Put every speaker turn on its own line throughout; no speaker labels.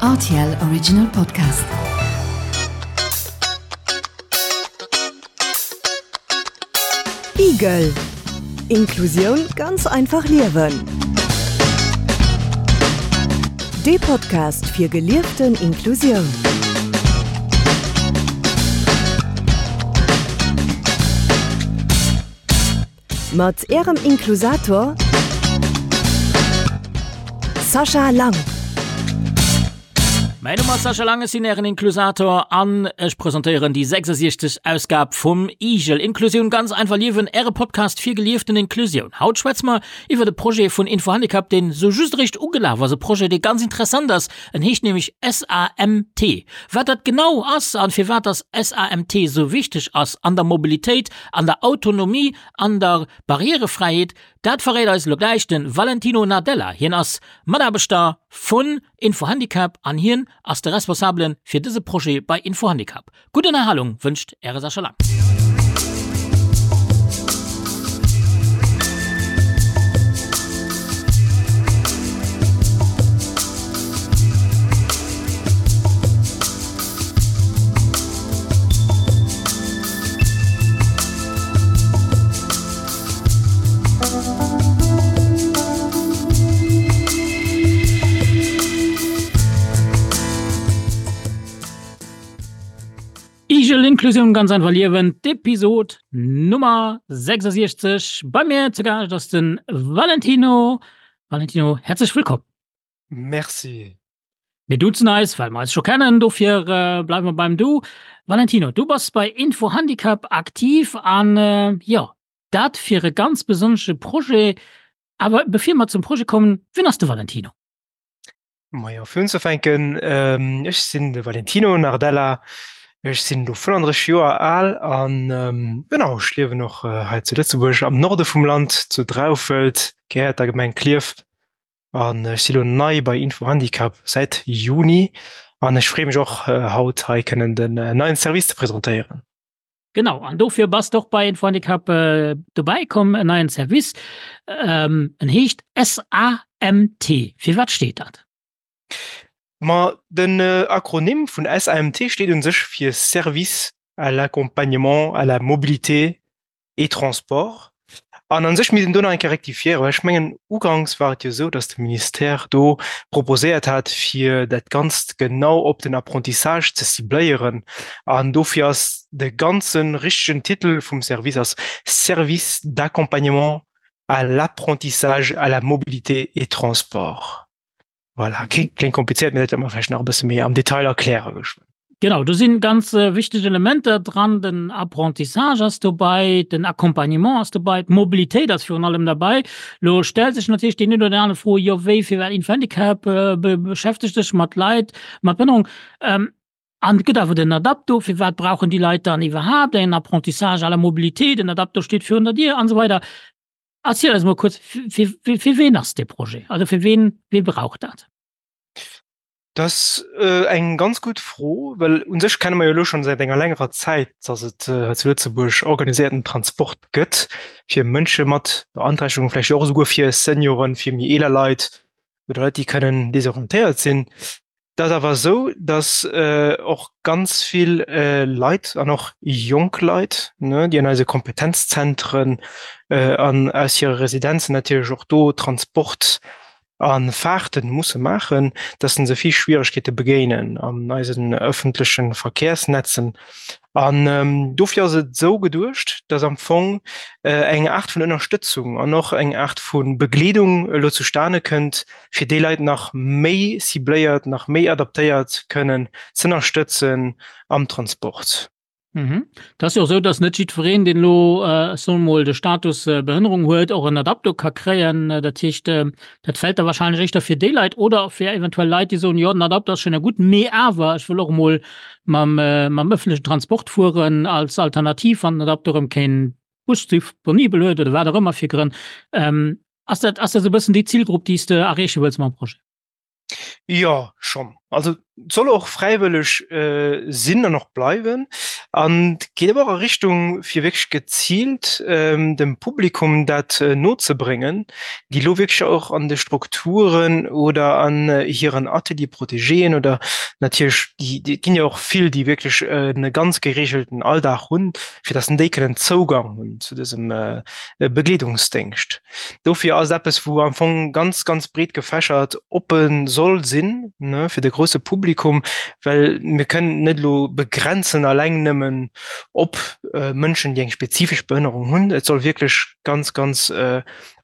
Rtl Original Podcast. Igel. Inklusioun ganz einfach liewen. Dee Podcast fir gelieften Inklusioun. Mat Ärem Inklusator Sascha Lang.
Mäin Numm ass Sascha Lang, ech sinn Ären Inklusator an ech presentéieren déi 66. Ausgab vum IGEL, Inklusioun ganz einfach liewen, Äre Podcast fir gelieften Inklusioun. Haut schwätze mer iwwert e Projet vun Infohandicap, deen sou just eréischt ugelaf ass, e Projet, dee ganz interessant ass. En heescht nämlech SAMT. Wat dat genau ass an firwat dass SAMT sou wichteg ass an der Mobilitéit, An der Autonomie, an der Barrierefräiheet, dat verréit eis elo gläich de Valentino Nardella. Hien ass Mataarbechter vun Infohandicap an hien ass de Responsabele fir dëse Projet bei Infohandicap. Gutt Ënnerhalung wënscht Äre Sascha Lang. Igel Inklusioun ganz einfach liewen, d'Episod Nummer 66. Bei mir zu Gaascht ass de Valentino. Valentino, häerzlech wëllkomm.
Merci.
Mir duzen eis, well mer eis scho kennen, dofir bleiwe mer beim Du. Valentino, du bass bei Info-Handicap aktiv an, jo, dat fir e ganz besonnesche Projet. Awer bevir mer zum Projet kommen, wien ass de Valentino?
Majo, fir unzefänken, ech sinn de Valentino Nardella, ech sinn elo 35 Joer al an, genau, ech liewen och hei zu Lëtzebuerg am Norde vum Land, zu Draufelt, gehéiert der Gemeng Klierf. An ech si lo nei bei Info Handicap säit Juni an ech freeë mech och haut hei kënnen den neien Service ze presentéieren.
Genau, an dofir bass de och bei Info Handicap dobäi komm, en neien Service, en heescht SAMT. Fir wat steet dat?
Ma den Akronym vun SAMT steet un sech fir Service à l'accompagnement à la mobilité et Transport. An a sech misst een do nach eng Kéier rektifiéieren, well ech mengen, uganks war et jo esou, datt de Ministère do proposéiert hat, fir dat Ganzt genau op den Apprentissage ze cibléieren. An dofir ass de ganze richtegen Titel vum Service ass Service d'accompagnement à l'apprentissage, à la mobilité et transport. Voilà, kléngt komplizéiert, mee dat wäerte mer vläicht nach e bësse méi am Detail erkläre geschwënn.
Genau, do si ganz wichteg Elementer dran. Den Apprentissage ass dobäi, den Accompagnement ass dobäi, d'Mobilitéit ass virun allem derbäi. Elo stellt sech natierlech deen een oder deen anere Fro, jo wéi, firwat Info-Handicap beschäftegt sech mat Leit mat Behënnerung? An et gëtt awer den Adapto, firwat brauchen déi Leit dann iwwerhaapt en Apprentissage à la mobilité? Den Adapto steet virun der Dier an esou weider. Erziel eis mol kuerz, fir, fir, fir ween ass dee Projet? Also fir ween, wee brauch dat?
Dat ass eng ganz gutt Fro, well u sech kenne mer jo elo schonn säit enger längerer Zäit, dass et hei zu Lëtzebuerg organiséierten Transport gëtt fir Mënsche mat Beanträchtegung, vläicht och esouguer fir Senioren, fir méi eeler Leit oder Leit, déi kënnen desorientéiert sinn. Et ass awer esou, datt och ganz vill Leit an och jonk Leit, déi an eise Kompetenzzentren an aus hire Residenzen natierlech och do Transport a Fahrte musse maachen, datt se vill Schwieregkeete begéinen an eisen ëffentleche Verkehrsnetzen. An dofir ass et esou geduecht, datt am Fong eng Aart vun Ënnerstëtzung an och eng Aart vu Begleedung elo zustane kënnt, fir déi Leit nach méi cibléiert, nach méi adaptéiert kënnen z'ënnerstëtzen am Transport.
Mhm. Et ass jo och esou, datt net jiddwereen, deen elo, ech soe mol, de Status Behënnerung huet, och en Adapto ka kréien. Dat heescht, dat fält da wahrscheinlech éischter fir déi Leit oder fir eventuell Leit, déi soen, jo, den Adapto ass schéin a gutt, mee awer ech wëll och emol mam, mam ëffentlechen Transport fueren als Alternativ, wann den Adapto erëm keen Bus disponibel huet oder wat och ëmmer fir Grënn. Ass dat, ass dat esou e bëssen déi Zilgrupp, déi s de erreeche wëlls mam Projet?
Jo, schonn. Also et soll och fräiwëlleg sinn an och bleiwen. An et geet awer och a Richtung, fir wierklech geziilt dem Publikum dat nozebréngen, déi elo wierklech och an de Strukturen oder an hiren Ateliers protégéen oder natierlech déi, et ginn jo och vill, déi wierklech e ganz geregelten Alldag hunn, fir datt déi kënnen Zougang hunn zu dësem Begleedungsdéngscht. Dofir ass et eppes, wou am Fong ganz, ganz breet gefächert oppe soll sinn, ne, fir de grousse Publikum, well mir kënnen et net elo begrenzen alleng nëmmen op Mënschen, déi eng spezifesch Behënnerung hunn. Et soll wierklech ganz, ganz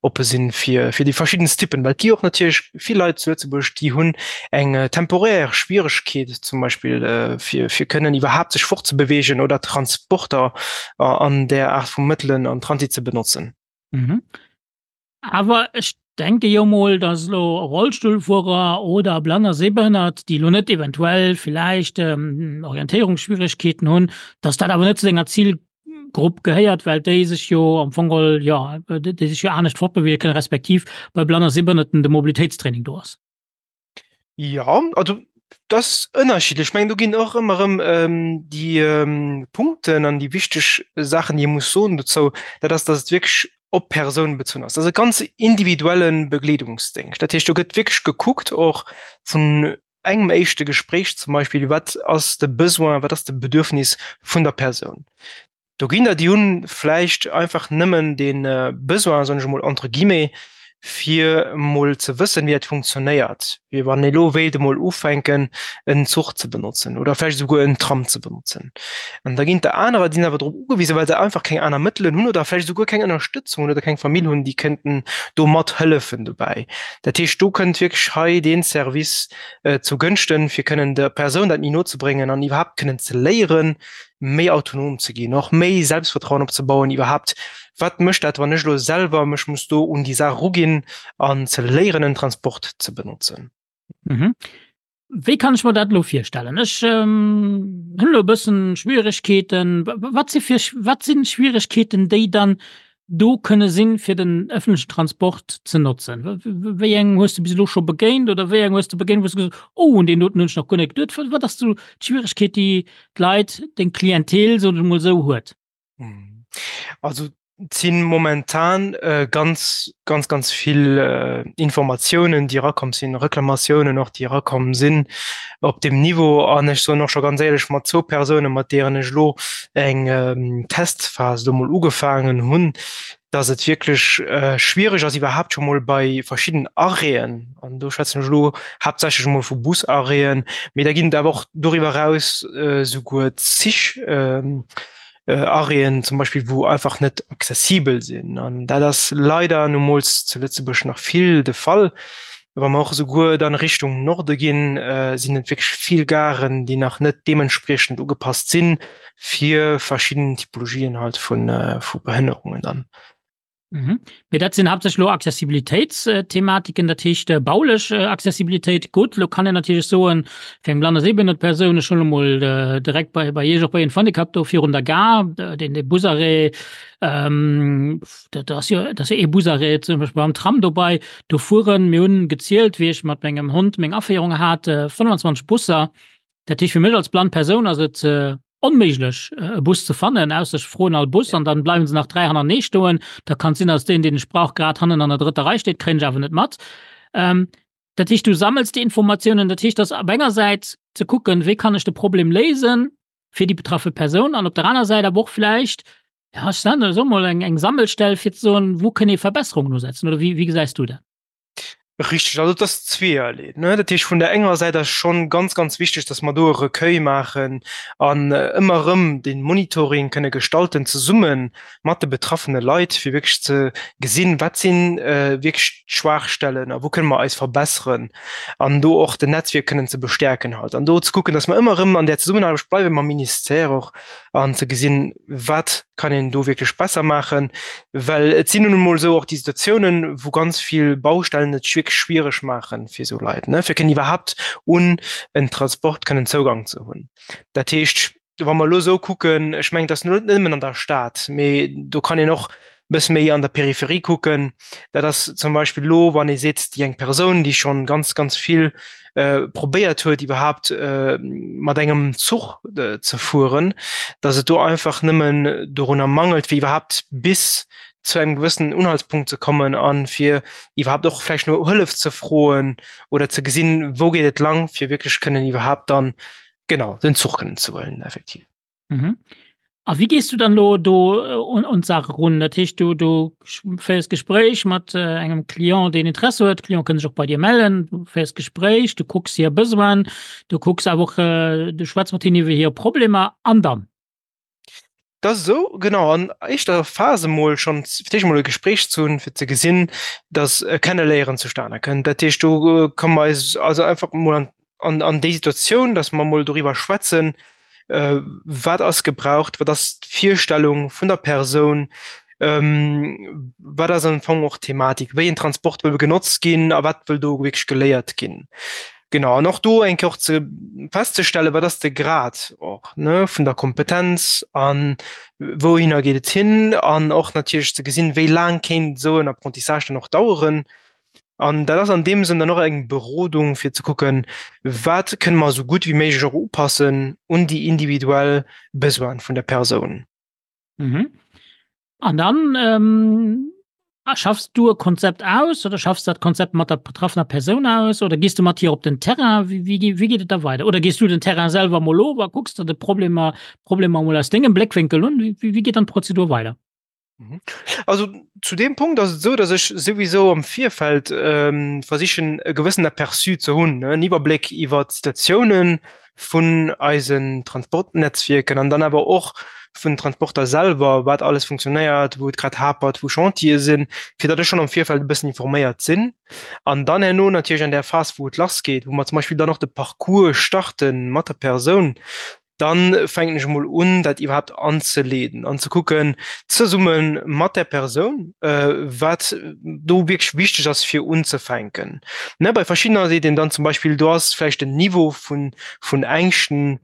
oppe sinn fir, fir déi verschiddenst Typen, well et gi och natierlech vill Leit zu Lëtzebuerg, déi hunn eng temporär Schwieregkeet zum Beispill, fir, fir kënnen iwwerhaapt sech fortzebewegen oder Transporter an där Aart vu Mëttelen an Transit ze benotzen.
Mhm. Awer ech denke jo mol, dass elo Rollstullfuerer oder Blann a Sehbehënnert, déi elo net eventuell villäicht Orientéierungsschwieregkeeten hunn, dass dat awer net zu denger Zilgrupp gehéiert, well déi sech jo am Fong geholl, jo, déi sech jo anescht fortbeweege kënnen, respektiv bei Blann a Sehbehënnerten de Mobilitéitstraining do ass.
Ja, also dat ass ënnerschiddlech. Ech mengen, do ginn och ëmmer erëm déi Punkten an déi wichteg Saachen, déi ee muss soen dozou, dat ass, datt et wierklech op d'Persoun bezunn ass. Dat ass e ganz individuelle Begleedungsdéngscht. Dat heescht, do gëtt wierklech gekuckt och vun engem éischte Gespréich zum Beispill, wat ass de Besoin, wat ass de Bedürfnis vun der Persoun. Do ginn der, déi hunn vläicht einfach nëmmen dee Besoin, soen ech emol entre guillemets, fir emol ze wëssen, wéi dat funktionéiert, wéi wann ee elo wéilt emol ufänken, en Zuch ze benotzen oder vläicht esouguer en Tram ze benotzen. An da ginn der anerer, déi sinn awer drop ugewisen, well se einfach keng aner Mëttelen hunn oder vläicht esouguer keng Ënnerstëtzung hunn oder keng Famill hunn, déi kënnten do mathëllefen dobäi. Dat heescht, do kënnt wierklech hei dee Service zu Gënschten, fir kënnen der Persoun dat méi no ze bréngen an iwwerhaapt kënnen ze léieren, méi autonom ze ginn, och méi Selbstvertrauen opzebauen iwwerhaapt, wat mécht dat, wann ech elo selwer mech muss do un déi Saach eruginn an ze léieren en Transport ze benotzen.
Mhm. Wéi kann ech mer dat elo virstellen? Ech hunn elo e bëssen Schwieregkeeten. Wat si fir, wat sinn Schwieregkeeten, déi dann do kënne sinn, fir den ëffentlechen Transport ze notzen? Wéi eng hues de bis elo scho begéint oder wéi eng hues de begéint, wou s de gesot hues, oh, un deen doten hunn ech nach guer net geduet? Wat ass sou d'Schwieregkeet, déi d'Leit, deng Clientèle, soen ech emol esou, huet?
Also et si momentan ganz, ganz, ganz vill Informatiounen, déi erakomm sinn, Reklamatiounen och, déi erakomm sinn op deem Niveau. An ech soen och scho ganz éierlech, mat zwou Persounen, mat deenen ech elo eng Testphas elo mol ugefaangen hunn, dass et wierklech schwiereg ass iwwerhaapt scho mol bei verschidden Arrêten, an do schwätzen ech elo haaptsächlech emol vu Busarrêten, mee da ginn et awer och doriwwer eraus souguer Zich, Arrêten zum Beispill, wou einfach net accessibel sinn. An dat ass leider numools zu Lëtzebuerg nach vill de Fall. Wa mer och esouguer dann Richtung Norde ginn, sinn et wierklech vill Garen, déi nach net deementspriechend ugepasst sinn fir verschidden Typologien halt vu Behënnerungen dann.
Mhm. Mee dat sinn haaptsächlech elo Accessibilitéitsthematiken, dat heescht äh, baulech äh, Accessibilitéit. Gutt, lo kann een natierlech soen, fir eng blann a sehbehënnert Persoun, ech hunn emol äh, direkt bei, bei Iech och bei Handicap do virun der Gare, äh, den, de Busarrêt, ähm, dat ass jo, dat ass jo ee Busarrêt zum Beispill beim Tram dobei, do fueren, mir hunn gezielt, wéi ech mat mengem Hond meng Aféierung hat, äh, 25 Busser. Dat heescht, fir mech als blann Persoun ass et äh, onméiglech e Bus ze fannen, ausser ech froen all Bus an dann bleiwen se nach 3 hannerneesch stoen. Da kann et sinn, dass deen, deen ech brauch, grad hannen an der drëtter Rei steet, kréien ech awer net mat. Ähm, dat heescht, du sammels déi Informatiounen. Dat heescht, dass op enger Säit ze kucken, wéi kann ech de Problem léisen fir déi betraffe Persoun an op der aner Säit awer och vläicht, ja, ech soen elo mol, eng, eng Sammelstell fir ze soen, wou kënne ee Verbesserungen usetzen oder wéi, wéi gesäis du dat?
Richteg, also et ass zweeërlee. Ne? Dat heescht, vun der enger Säit ass schonn ganz, ganz wichteg, datt mer do e Recueil maachen an ëmmer erëm de Monitoring kënne gestalten zesumme mat de betraffene Leit, fir wierklech ze gesinn, wat si wierklech d'Schwaachstellen a wou kënne mer eis verbesseren an do och den Netzwierk kënnen ze bestäerken halt an do ze kucken, datt mer ëmmer erëm an där Zesummenaarbecht bleiwe mam Ministère och an ze gesinn, wat kann een do wierklech besser maachen, well et sinn nun emol esou och déi Situatiounen, wou ganz vill Baustellen et wierklech schwiereg maachen fir esou Leit, ne, fir kënnen iwwerhaapt un en Transport kënnen Zougang ze hunn. Dat heescht, wa mer elo esou kucken, ech mengen, et ass net nëmmen an der Stad, mee do kann een och. Bësse méi an der Peripherie kucken, dat ass zum Beispill elo, wann ee seet, déi eng Persoun, déi schonn ganz, ganz vill probéiert huet, iwwerhaapt mat engem Zuch ze fueren, datt et do einfach nëmmen dorunner mangelt, fir iwwerhaapt bis zu engem gewëssenen Unhaltspunkt ze kommen a fir iwwerhaapt och vläicht no Hëllef ze froen oder ze gesinn, wou geet et lang, fir wierklech kënnen iwwerhaapt dann, genau, den Zuch kënnen ze huelen, effektiv.
Mhm. A wéi gees du dann elo do un, un d'Saach erun? Dat heescht, du, du féiers Gespréich mat engem Client, deen Interesse huet. D'Client kënne sech och bei dir mellen. Du féiers Gespréich, du kucks hir Besoinen, du kucks awer och, du schwätz mat hinnen iwwer hir Problemer an dann?
Dat ass esou, genau. An éischter Phas emol schonn fir d'éischt emol e Gespréich ze hunn, fir ze gesinn, datt e Kenneléieren zustane kënnt. Dat heescht, do komme mer eis also einfach emol an an, an déi Situatioun, datt mer emol doriwwer schwätzen, wat ass gebraucht, wat ass d'Virstellung vun der Persoun, wat ass am Fong och d'Thematik, wéi en Transport wëll genotzt ginn a wat wëll do wierklech geléiert ginn. Genau, an och do eng Kéier och ze festzestellen, wat ass de Grad och, ne, vun der Kompetenz a wouhinner geet et hin an och natierlech ze gesinn, wéi laang kéint esou en Apprentissage dann och daueren. An dat ass an deem Sënn dann och eng Berodung, fir ze kucken, wat kënne mer esou gutt wéi méiglech och upassen un déi individuell Besoine vun der Persoun.
Mhm. An dann ähm, schaffst du e Konzept aus oder schaffst dat Konzept mat der betraffener Persoun aus oder gehst du mat hir op den Terrain? Wie, wie, wie geet et da weider? Oder gehst du den Terrain selwer mol of a kucks der de Problemer, Problemer mol aus dengem Bléckwénkel un? Wie, wie geet dann d'Prozedur weider?
Mhm. Also zu dem Punkt ass et esou, datt ech souwisou am Virfeld ähm, versichen e gewëssen Aperçu ze hunn, ne, en Iwwerbléck iwwer d'Situatiounen vun eisen Transportnetzwierken an dann awer och vun Transporter selwer, wat alles funktionéiert, wou et grad hapert, wou Chantiere sinn, fir datt ech schonn am Virfeld e bëssen informéiert sinn. An dann herno natierlech an där Phas, wou et lassgeet, wou mer zum Beispill dann och de Parcours starte mat der Persoun, dann fänken ech emol un, dat iwwerhaapt anzeleeden an ze kucken, zesumme mat där Persoun, wat do wierklech wichteg ass, fir unzefänken. Ne, bei verschiddener seet een dann zum Beispill, do ass vläicht den Niveau vun, vun Ängschten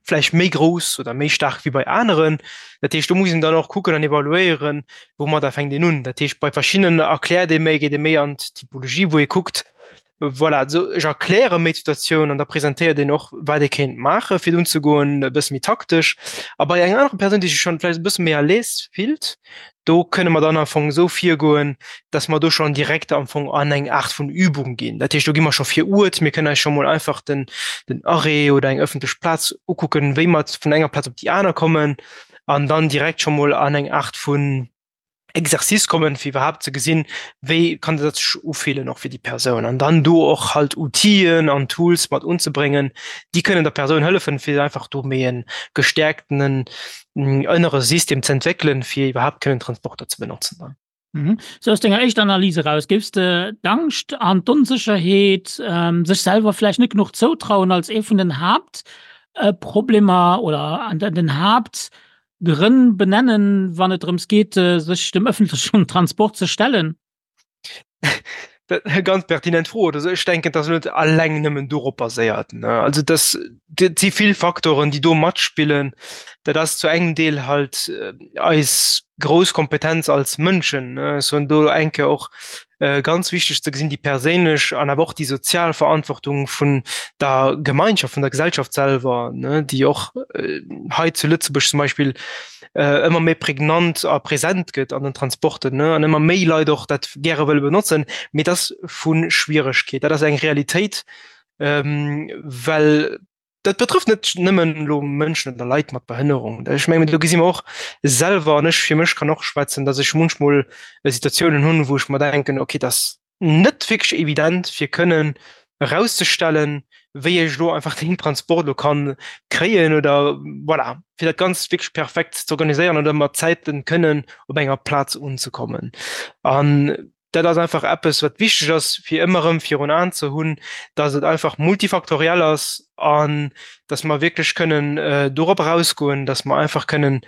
vläicht méi grouss oder méi staark wéi bei aneren. Dat heescht, do muss een dann och kucken an evaluéieren, woumadder fänkt een un. Dat heescht, bei verschiddenen erkläert ee méi, geet ee méi an d'Typologie, wou ee kuckt, Voilà, also ech erkläre méi d'Situatioun an da presentéiert een och, wat ee kéint maachen, fir unzegoen, e bësse méi taktesch. A bei enger anerer Persoun, déi sech schonn vläicht e bësse méi à l'aise fillt, do kënne mer dann am Fong esou virgoen, dass mer do schonn direkt am Fong an eng Aart vun Übung ginn. Dat heescht, do gi mer scho vir Uert, mir kënnen eis scho mol einfach den, den Arrêt oder eng ëffentlech Plaz ukucken, wéi mer vun enger Plaz op déi aner kommen an dann direkt scho mol an eng Aart vun, Exercice kommen, fir iwwerhaapt ze gesinn, wéi kann dat sech ufillen och fir déi Persoun an dann do och halt Outien an Tools mat unzebréngen, déi kënnen der Persoun hëllefen, fir einfach do méi e gestäerktenen ënnere System ze entwéckelen, fir iwwerhaapt kënnen Transporter ze benotzen dann.
Mhm. Sou aus denger éischter Analys eraus, géifs de d'Angscht an d'Onsécherheet, sech selwer vläicht net genuch zoutrauen als ee vun den Haaptproblemer oder an den Haapt Grënn benennen, wann et drëms geet, sech dem ëffentlechen Transport ze stellen?
Dat eng ganz pertinent Fro. Also ech denken, dass net alleng nëmmen dorop baséiert. Also das dat si vill Faktoren, déi do matspillen. Dat ass zu engem Deel halt eis grouss Kompetenz als Mënschen. Ech soen do eng Kéier och ganz wichteg ze gesinn, déi perséinlech an awer och déi sozial Verantwortung vun der Gemeinschaft, vun der Gesellschaft selwer, déi och hei zu Lëtzebuerg zum Beispill ëmmer méi prägnant a present gëtt an den Transporten an ëmmer méi Leit och dat gäre wëlle benotzen. Mee dat ass vu Schwieregkeet, dat ass eng Realitéit, well Dat betrëfft net nëmmen elo Mënschen oder Leit mat Behënnerung. Ech mengen, do gesi mer och selwer, an ech fir mech kann och schwätzen, datt ech munchmol Situatiounen hunn, wou ech mer denken, okay, dat ass net wierklech evident, fir kënnen erauszestellen, wéi ech elo einfach deen Transport elo kann kréien oder voilà, fir dat Ganzt wierklech perfekt ze organiséieren oder mat Zäiten kënnen op enger Plaz unzekommen. An Dat ass einfach eppes, wat wichteg ass, fir ëmmer erëm virun Aen ze hunn, dass et einfach multifaktoriell ass an dass mer wierklech kënnen dorop erausgoen, dass mer einfach kënnen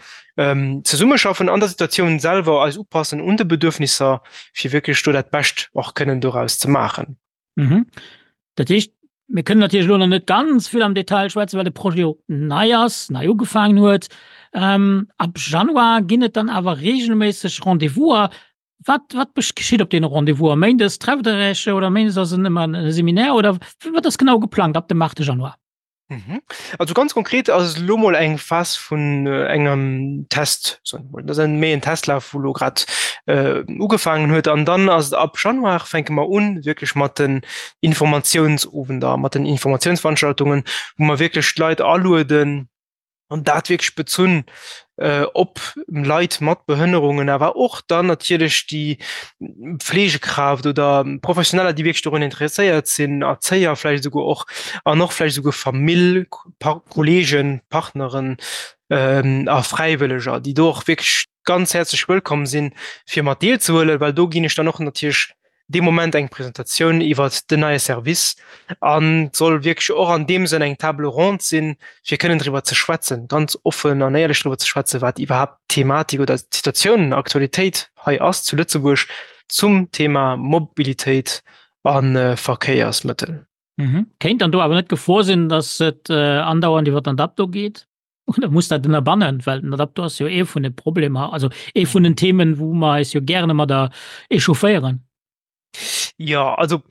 zesummeschaffen an der Situatioun selwer, eis upassen un de Bedürfnisser, fir wierklech do dat Bescht och kënnen doraus ze maachen.
Dat heescht. Mir kënnen natierlech elo nach net ganz vill am Detail schwätzen, well de Projet jo nei ass, nei ugefaangen huet. Ab Januar ginn et dann awer reegelméisseg Rendez-vouser. Wat, wat geschitt op deene Rendez-vouser? Méindes trefft Der Iech oder méindes ass en ëmmer e Seminaire oder wat ass genau geplangt ab dem 8 Januar?
Mhm. Also ganz konkret ass et elo mol eng Phas vun engem Test, soen ech mol. Dat ass méi en Testlaf, wou elo grad ugefaangen huet. An dann ass et ab Januar fänke mer un wierklech mat den Informatiounsowender, mat den Informatiounsveranstaltungen, wou mer wierklech d'Leit alueden, an dat wierklech bezunn op Leit mat Behënnerungen, awer och dann natierlech déi Pflegekraaft oder Professioneller, déi wierklech dorun interesséiert sinn, Erzéier vläicht esouguer och an och vläicht esouguer Famill, Kollegen, Partneren a Fräiwëlleger, déi do och wierklech ganz häerzlech wëllkomm sinn, fir mat deelzehuelen, well do ginn ech dann och natierlech dee Moment eng Presentatioun iwwert den neie Service an et soll wierklech och an deem Sënn eng Table ronde sinn, fir kënnen driwwer ze schwätzen, ganz offen an éierlech driwwer ze schwätzen, wat iwwerhaapt d'Thematik oder d'Situatioun, Aktualitéit hei ass zu Lëtzebuerg zum Thema Mobilitéit a Verkéiersmëttel.
Kéint dann do awer net d'Gefor sinn, datt et andauernd iwwer den Adapto geet? Oder muss dat ënnerbannen, well den Adapto ass jo ee vun de Problemer, also ee vun den Themen, wou mer eis jo gären ëmmer da echaufféieren.
Jo, also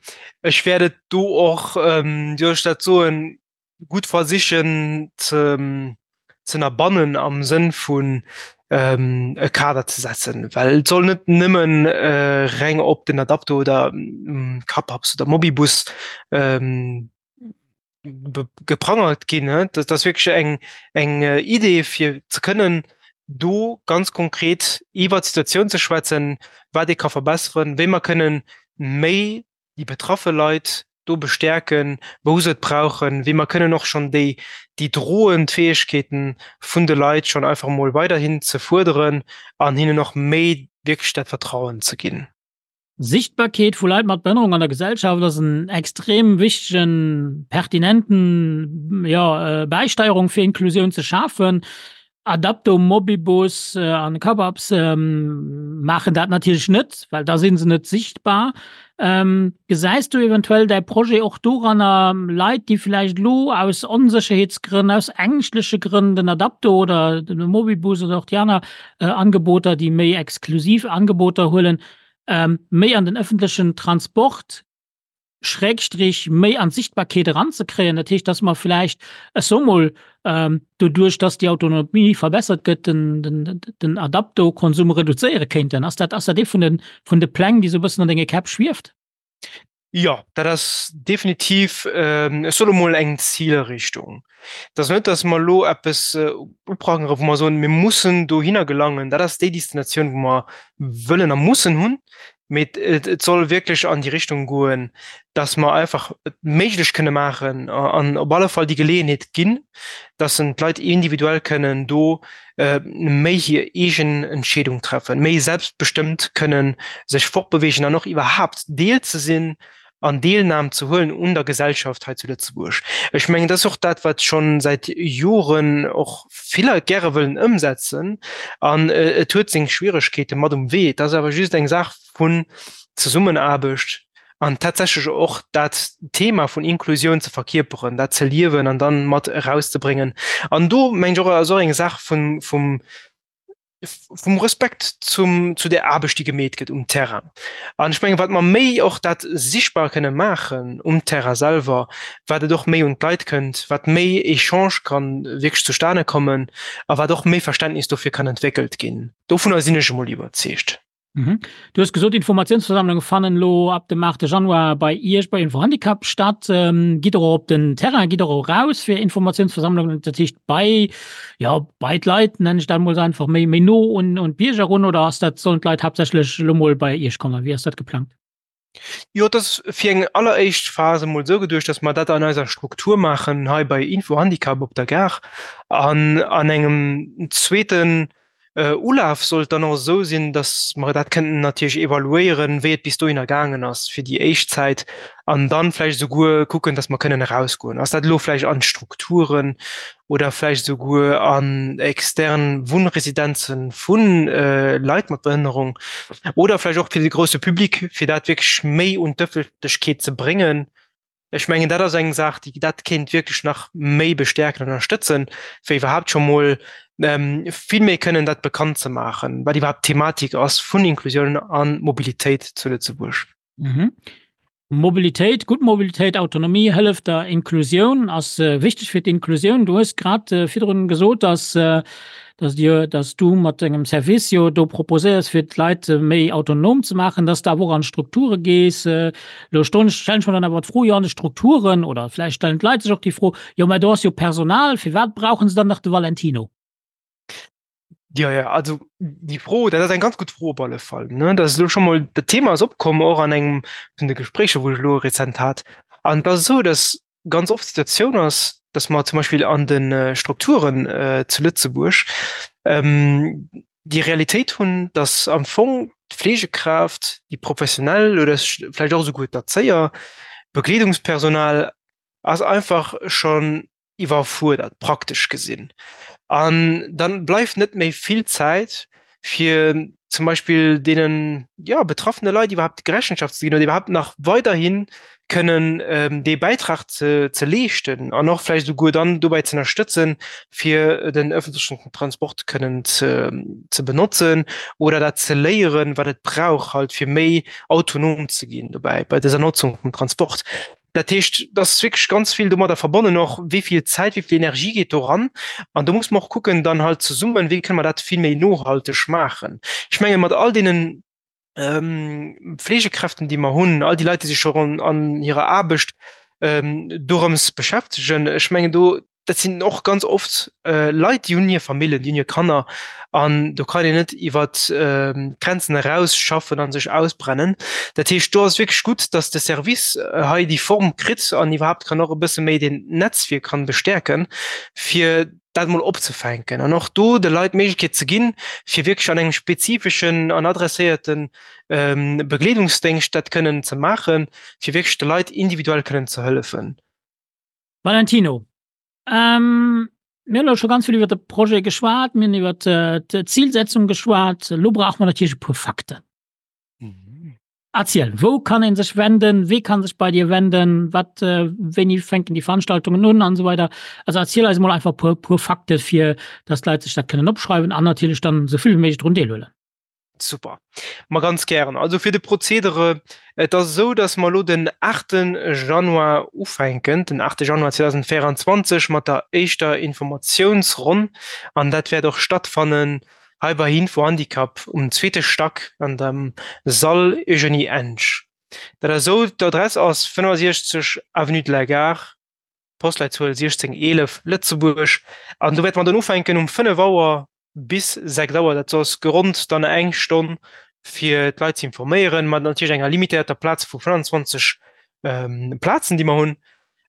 ech wäert et do och, wéi soll ech dat soen, gutt versichen ze ënnerbannen am Sënn vun e Kader ze setzen, well et soll net nëmmen reng op den Adapto oder Capaps oder Mobibus geprangert ginn. Dat ass wierklech eng eng Idee fir ze kënnen do ganz konkret iwwer d'Situatioun ze schwätzen, wat ee ka verbesseren, wéi mer kënnen méi déi betraffe Leit do bestäerken, wou se et brauchen, wéi mer kënnen och schonn déi déi droend Fäegkeeten vun de Leit schonn einfach emol weiderhin ze fuerderen an hinnen och méi wierklech dat Vertrauen ze ginn.
Sichtbarkeet vu Leit mat Behënnerung an der Gesellschaft ass en extrem wichtegen, pertinenten, jo, Bäisteierung fir Inklusioun ze schafen. Adapto, Mobibus an Cababs maachen dat natierlech net, well da si se net sichtbar. Gesäis du eventuell däi Projet och doranner, Leit, déi vläicht elo aus Onsécherheetsgrënn, aus ängschtleche Grënn den Adapto oder de Mobibus oder och déi aner Angeboter, déi méi exklusiv Angeboter huelen, méi an den ëffentlechen Transport, Schrägstrich méi an d'Sichtbarkeet eranzekréien. Dat heescht, dass mer vläicht, ech soe mol, doduerch dass déi Autonomie verbessert gëtt, den Adapto-Konsum reduzéiere kéinten. Ass dat, ass dat ee vun de, vun de Pläng, déi esou e bëssen an denge Käpp schwieft?
Jo, dat ass definitiv, ech soe lo mol, eng Zilrichtung. Et ass net, datt mer elo eppes uprangere wou mer soen, mir mussen dohinner gelangen, dat ass déi Destinatioun, wou mer wëllen a mussen hunn, mee et soll wierklech an déi Richtung goen, datt mer einfach et méiglech kënne maachen an op alle Fall déi Geleeënheet ginn, datt en d'Leit individuell kënnen do méi hir eegen Entscheedung treffen, méi selbstbestëmmt kënnen sech fortbewegen an och iwwerhaapt Deel ze sinn an Deelnam ze huelen un der Gesellschaft hei zu Lëtzebuerg. Ech mengen, dat ass och dat, wat scho säit Joren och vill Leit gäre wëllen ëmsetzen an et huet seng Schwieregkeete mat um Wee. Et ass awer just eng Saach vun Zesummenaarbecht an tatsächlech och dat Thema vun Inklusioun ze verkierperen, dat ze liewen an dann mat erauszebréngen. An do mengen ech och, ass och eng Saach vun, vum, vum Respekt zum, zu der Aarbecht, déi gemeet gëtt um Terrain. An ech mengen, wat mer méi och dat sichtbar kënne maachen um Terrain selwer, wat et och méi un d'Leit kënnt, wat méi Echange kann wierklech zustane kommen a wat och méi Verständnis dofir kann entwéckelt ginn. Dovunner sinn ech emol iwwerzeegt.
Mhm. Du hues gesot, Informatiounsversammlunge fannen elo ab dem 8. Januar bei Iech bei Infohandicap statt. Ähm, gitt Der och op den Terrain, gitt Der och raus fir Informatiounsversammlungen, dat heescht bei, ja, bei d'Leit, nennen ech dat emol esou einfach, méi, méi no un, un d'Bierger erun oder ass dat, sollen d'Leit haaptsächlech elo mol bei Iech kommen? Wéi ass dat geplangt?
Jo, et ass fir eng alleréischt Phas emol esou geduecht, dass mer dat an eiser Struktur maachen hei bei Infohandicap op der Gare. An an engem zweeten Ulaf soll et dann och esou sinn, dass mer dat kënnten natierlech evaluéieren, wéi et bis dohinner gaangen ass fir déi éischt Zäit an dann vläicht esouguer kucken, dass mer kënnen erausgoen. Ass dat elo vläicht an d'Strukturen oder vläicht esouguer an extern Wunnresidenze vu Leit mat Behënnerung oder vläicht och fir de grousse Public, fir dat wierklech méi un d'Ëffentlechkeet ze bréngen. Ech mengen, dat ass eng Saach, déi dat kéint wierklech nach méi bestärken an ënnerstëtzen, fir iwwerhaapt scho mol vill méi kënnen dat bekannt ze maachen, wat iwwerhaapt d'Thematik ass vun Inklusioun a Mobilitéit zu Lëtzebuerg.
Mhm. Mobilitéit, gutt Mobilitéit, Autonomie hëlleft der Inklusioun, ass wichteg fir d'Inklusioun. Du hues grad virdrun gesot, dass, dass Dir, dass du mat dengem Service jo do proposéiers, fir d'Leit méi autonom ze maachen, dass de awer och an d'Strukture gees. Elo stellen ech mer dann awer d'Fro, jo an de Strukturen, oder vläicht stellen d'Leit sech och déi Fro, jo mä do ass jo Personal, firwat brauche se dann nach de Valentino?
Ja, ja, also déi Fro, dat ass eng ganz gutt Fro op alle Fall. Ne? Dat ass elo scho mol, dat Thema ass opkomm och an engem vun de Gespréicher, wou ech elo rezent hat. An et ass esou, datt ganz oft d'Situatioun ass, datt mer zum Beispill an de Strukturen zu Lëtzebuerg déi Realitéit hunn, datt am Fong d'Fleegekraaft, déi Professionell oder vläicht och esouguer d'Erzéier, d'Begleedungspersonal ass einfach schonn iwwerfuerdert, praktesch gesinn. An dann bleift net méi vill Zäit, fir zum Beispill deenen, jo, betraffene Leit iwwerhaapt Rechenschaft ze ginn oder iwwerhaapt nach weiderhi kënnen dee Bäitrag ze ze leeschten an och vläicht esouguer dann dobäi ze ënnerstëtzen, fir den öffentlechen Transport kënnen ze ze benotzen oder dat ze léieren, wat et brauch halt, fir méi autonom ze ginn dobäi bei dëser Notzung vum Transport. Dat heescht, et ass wierklech ganz vill domadder verbonnen och, wéi vill Zäit, wéi vill Energie geet do ran. An do muss mer och kucken dann halt zesummen, wéi kënne mer dat vill méi nohalteg maachen. Ech menge mat all deenen Fleegekräften, déi mer hunn, all déi Leit, déi sech scho an hirer Aarbecht dorëms beschäftegen, ech mengen do, dat sinn och ganz oft Leit, déi hunn hir Famillen, déi hunn hir Kanner an do kann een net iwwer d'Grenzen eraus schaffen a sech ausbrennen. Dat heescht, do ass et wierklech gutt, datt de Service hei déi Form kritt an iwwerhaapt kann och e bësse méi deen Netzwierk kann bestärken, fir dat emol opzefänken an och do de Leit d'Méiglechkeet ze ginn, fir wierklech an engem spezifeschen an adresséierte Begleedungsdéngscht dat kënnen ze maachen, fir wierklech de Leit individuell kënnen ze hëllefen.
Valentino, Mir hunn elo scho ganz vill iwwer de Projet geschwat, mir hunn iwwer d'Zilsetzung geschwat. Elo brauche mer natierlech e puer Fakten. Erziel, wou kann ee sech wenden, wee kann sech bei dir wenden, wat, wéini fänken déi Veranstaltungen un an esou weider. Also erziel eis emol einfach e puer, puer Fakte fir datt d'Leit sech dat kënnen opschreiwen an natierlech dann esou vill wéi méiglech drun deelhuelen.
Super. Ma ganz gären. Also fir de Prozedere, et ass esou, datt mer elo den 8 Januar ufänken, den 8 Januar 2024 mat der éischter Informatiounsronn an dat wäert och stattfannen hei bei Info-Handicap um zweete Stack an dem Sall Eugenie Ensch. Dat ass esou, d'Adress ass 65 Avenue de la Gare, Postleitzuel 1611, Lëtzebuerg an do wäerte mer dann ufänken um 5 Auer bis 6 Auer, dat ass geronnt dann eng Stonn fir d'Leit ze informéieren, mat natierlech enger limitéierter Plaz vu 25 Plazen, déi mer hunn.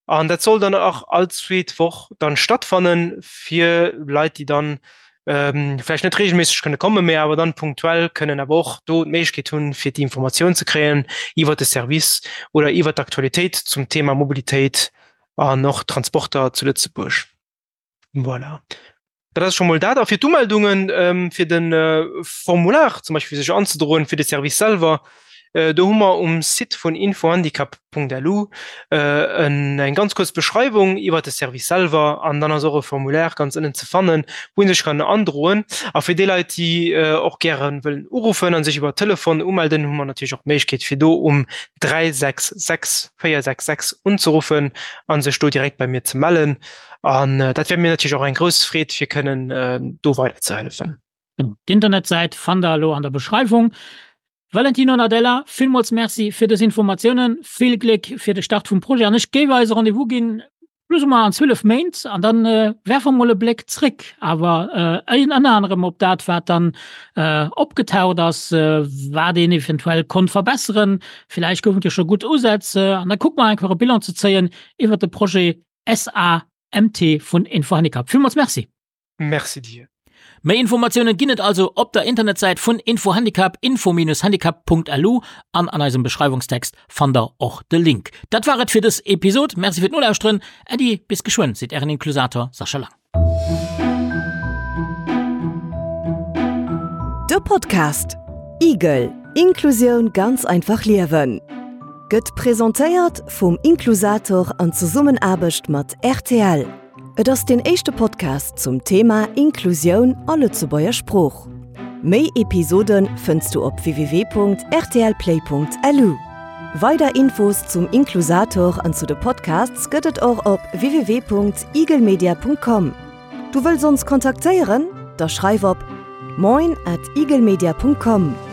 An dat soll dann och all zweet Woch dann stattfannen, fir Leit, déi dann vläicht net reegelméisseg kënne kommen, mee awer dann punktuell kënnen awer och do d'Méiglechkeet hunn, fir déi Informatioun ze kréien iwwert de Service oder iwwert d'Aktualitéit zum Thema Mobilitéit an och Transporter zu Lëtzebuerg. Voilà. Dat ass scho mol dat. A fir d'Umeldungen, fir de Formular zum Beispill fir sech anzedroen, fir de Service selwer, do hu mer um Site vun infohandicap.lu eng ganz kuerz Beschreiwung iwwer de Service selwer an dann ass och e Formulaire ganz ënnen ze fannen, wou ee sech kann androen. A fir déi Leit, déi och gäre wëllen uruffen a sech iwwer Telefon umelden, hu mer natierlech och d'Méiglechkeet fir do um 366 466 unzeruffen a sech do direkt bei mir ze mellen. An dat wär mir natierlech och eng grouss Freed, fir kënnen do weiderzehëllefen.
D'Internetsäit fannt der elo an der Beschreiwung. Valentino Nardella, villmools Merci fir dës Informatiounen. Vill Gléck fir de Start vum Projet an ech géif eis e Rendez-vous ginn, plus ou moins an 12 Méint an dann werfe mer mol e Bléck zréck, awer ënner anerem op dat, wat dann opgetaucht ass, wat een eventuell konnt verbesseren. Villäicht goufen et jo scho gutt Usätz an da kucke mer einfach e Bilan ze zéien iwwert de Projet SAMT vun Infohandicap. Villmools Merci!
Merci dir.
Méi Informatiounen ginn et also op der Internetsäit vun Infohandicap, info-handicap.lu an an eisem Beschreiwungstext fannt der och de Link. Dat war et fir dës Episod. Merci fir d'Nolauschteren. Äddi, bis geschwënn, seet ären Inklusator Sascha Lang.
De Podcast Igel, Inklusioun ganz einfach liewen. gëtt presentéiert vum Inklusator an Zesummenaarbecht mat rtl. Et ass deen éischte Podcast zum Thema Inklusioun a Lëtzebuerger Sprooch. Méi Episode fënns du op www.rtlplay.lu. Weider Infos zum Inklusator an zu de Podcasts gëtt et och op www.eaglemedia.com. Du wëlls ons kontaktéieren? Da schreif op moin at eaglemedia.com.